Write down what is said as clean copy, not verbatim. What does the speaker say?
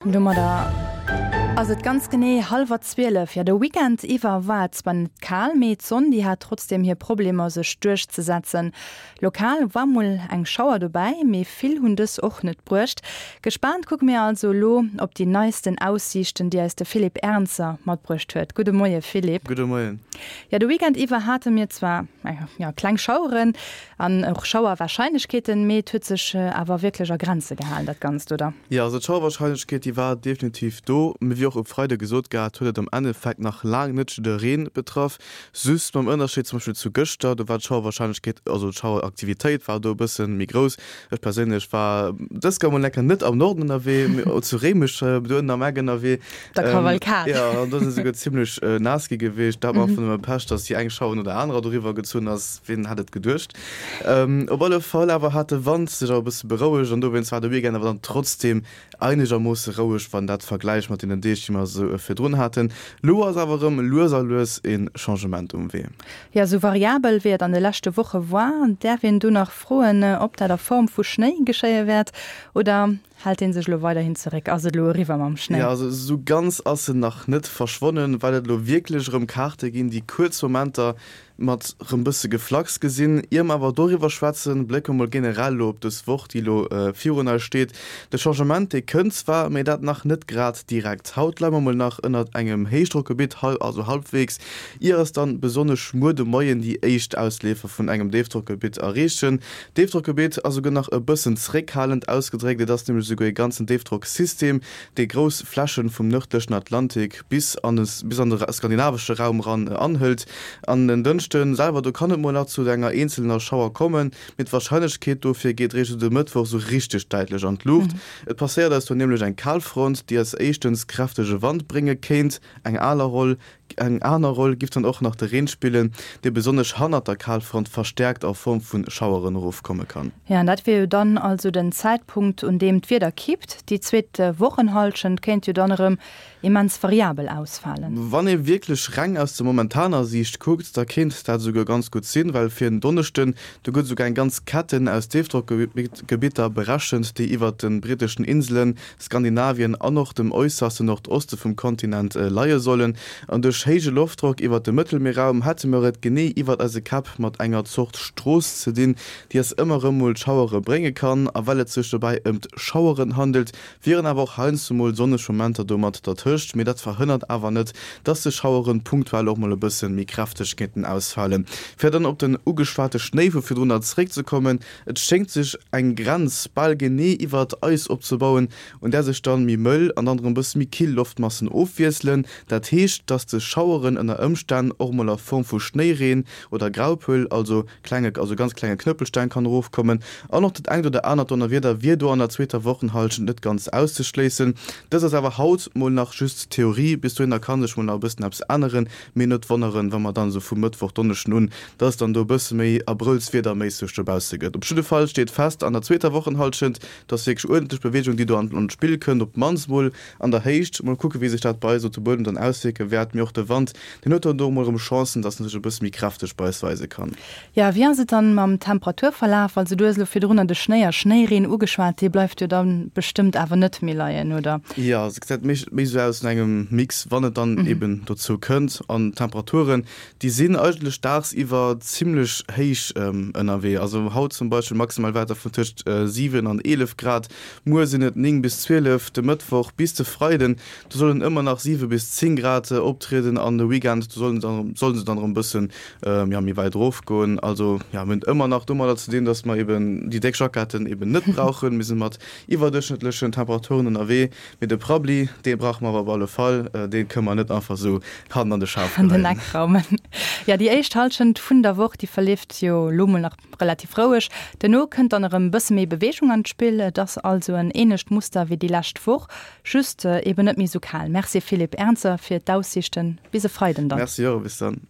Domadder ass et ganz genee hallwer 12. Jo, de Weekend iwwer war et zwar net kal, mee d'Sonn, déi hat trotzdeem hir Problemer sech duerchzesetzen. Lokal war mol eng Schauer dobäi, mee vill hunn dës och net bruecht. Gespaant kucke mir also elo op déi neisten Aussiichten, déi eis de Philippe Ernzer matbruecht huet. Gudde Moie Philippe. Gudde Moien. Jo, de Weekend iwwer hate mir zwar, jo, kleng Schaueren, An och Schauerwahrscheinlechkeeten, mee et huet sech awer wierklech a Grenze gehalen dat Ganzt, oder? Jo, also d'Schauerwahrscheinlechkeet déi war definitiv do, mee wéi och e Freide gesot gehat, huet et am Endeffekt nach laang net jiddereen betraff. Just mam Ënnerscheed zum Beispill zu gëschter, do war d'Schauerwahrscheinlechkeet, also d'Schaueraktivitéit war do e bësse méi grouss. Ech perséinlech war dës Kéier mol enker net am Norden ënnerwee, mee zu Réimech do ënnen am Eck ënnerwee. Der Kavalkad. Jo, an do si souguer zimmlech naass gi gewiescht. Dat war einfach nëmme Pech, dass déi eng Schauer no der anerer doriwwer gezunn ass. Wien hätt et geduecht? Op alle Fall awer hat de Wand sech awer e bësse berouegt an dowéinst war de Weekend awer dann trotzdeem einegermoosse roueg, wann dat vergläicht mat deenen Deeg, déi mer esou virdrun haten. Lo ass awer erëm lues a lues e Changement um Wee. Jo, esou variabel wéi et an de leschte Woche war, däerf een do nach froen, ob dat a Form vu Schnéi geschéie wäert oder Hält een sech elo weiderhin zeréck? Ass et elo eriwwer mam Schnéi? Jo, also esou ganz ass en nach net verschwonnen, well et elo wierklech erëm Kaarte ginn, déi kuerz Momenter mat rëm bësse Geflacks gesinn. Ier mer awer doriwwer schwätzen, blécke mer mol generell elo op dës Woch, déi elo virun eis steet. De Changement, dee kënnt zwar, mee dat nach net grad direkt. Haut leie mer mol nach ënnert engem Héichdrockgebitt, also halbwegs, ier eis dann besonnesch muer de Moien déi éischt Ausleefer vun engem Déifdrockgebitt erreechen. D'Déifdrockgebitt ass esouguer nach e bëssen zréckhalend ausgedréckt, et ass nämlech esouguer e ganzen Déifdrocksystem, dee grouss Flächen vum nërdlechen Atlantik bis an de bis an de skandinavesche Raum eran anhëlt. An en Dënschde selwer, do kann et mol nach zu enger eenzelner Schauer kommen, mee d'Warscheinlechkeet dofir geet réischt esou de Mëttwoch esou richteg däitlech an d'Luucht. Et passéiert eis do nämlech eng Kalfront, déi eis éischtens kräftege Wand brénge kéint, eng aler Roll Eng aner Roll giff dann och nach de Reen spillen, dee besonnesch hannert der Kalfront verstärkt a Form vun Schaueren erofkomme kann. Jo, an dat wier jo dann also den Zäitpunkt, un deem d'Wieder kippt. Déi zweet Wochenhallschent kéint jo dann erëm immens variabel ausfalen. Wann ee wierklech reng aus der momentaner Siicht kuckt, da kéint dat esouguer ganz gutt sinn, well fir en Donneschden, do gëtt esouguer eng ganz Ketten aus Déifdrockgebitter berechent, déi iwwert de britteschen Inselen, Skandinavien an och dem äusserste Nordoste vum Kontinent leie sollen. An duerch héije Loftdrock iwwert dem Mëttelmierraum hätte mer et genee iwwert eise Käpp mat enger Zort Strooss ze dinn, déi eis ëmmer erëm mol Schauere brénge kann. A well et sech dobäi ëmt Schaueren handelt, wieren awer och heiansdo mol sonneg Momenter do mat dertëscht, mee dat verhënnert awer net, dass des Schaueren punktuell och mol e bësse méi kräfteg kéinten ausfalen. Fir dann op den ugeschwate Schnéi vu virdrunner zeréckzekommen, Et schéngt sech eng Grenz bal genee iwwert eis opzebauen, un där sech dann méi mëll an dann erëm bësse méi kill Loftmassen ofwiesselen. Dat heescht, dass des Schaueren ënner Ëmstänn och mol a Form vu Schnéireen oder Graupel, also klenge, also ganz klenge Knëppelsteng kann erofkommen. An och dat engt oder anert Donnerwieder wier do an der zweeter Wochenhallschent net ganz auszeschléissen. Dëst ass awer haut mol nach just Theorie, bis dohinner ka sech mol nach e bëssen eppes änneren. Mee net wonneren, wa mer dann esou vum Mëttwoch, Donneschden un, dass et dann do e bësse méi abrëllswiederméisseg dobausse gëtt. Op jidde Fall steet fest, an der zweeter Wochenhallschent, dass wierklech uerdentlech Beweegung, déi do an d'Spill kënnt, op d'mannst mol an der Héicht. Mol kucke wéi sech dat bei eis op de Buedem dann auswierke wäert. Mee och de Wand, deen huet dann do mol erëm Chancen, dass en sech e bësse méi kräfteg bei eis weise kann. Jo, wéi ass et dann mam Temperaturverlaf? Also du hues elo virdrunner de Schnéi a Schnéireen ugeschwat, dee bleift jo dann bestëmmt awer net méi leien, oder? Jo, se gesäit méi méi esou aus no engem Mix, wann et dann eben dozou kënnt. An d'Temperaturen, déi sinn eigentlech dagsiwwer zimmlech héich ënnerwee. Also haut zum Beispill maximal Wäerter vun tëscht 7 an 11 Grad, muer sinn et 9 bis 12, de Mëttwoch bis de Freiden, do sollen ëmmer nach 7 bis 10 Grad optrieden an de Weekend, do sollen se sollen se dann erëm bëssen jo, méi wäit erof goen. Also jo, mir hunn et ëmmer nach domadder ze dinn, dass mer eben déi déck Jacketten eben net brauchen. Mir si mat iwwerduerchschnëttlechen Temperaturen ënnerwee. Mee de Prabbli, dee brauche mer awer op alle Fall. Dee kënne mer net einfach esou hannen an de Schaf An den geheien. Eck raumen. Jo, déi éischt Hallschent vun der Woch, déi verleeft jo elo mol nach relativ roueg. Duerno kënnt dann erëm e bësse méi Beweegung an d'Spill. Et ass also en änlecht Muster wéi déi lescht Woch, just eben net méi esou kal. Merci Philippe Ernzer fir d'Aussiichten. Bis e Freiden dann. Merci och, bis dann.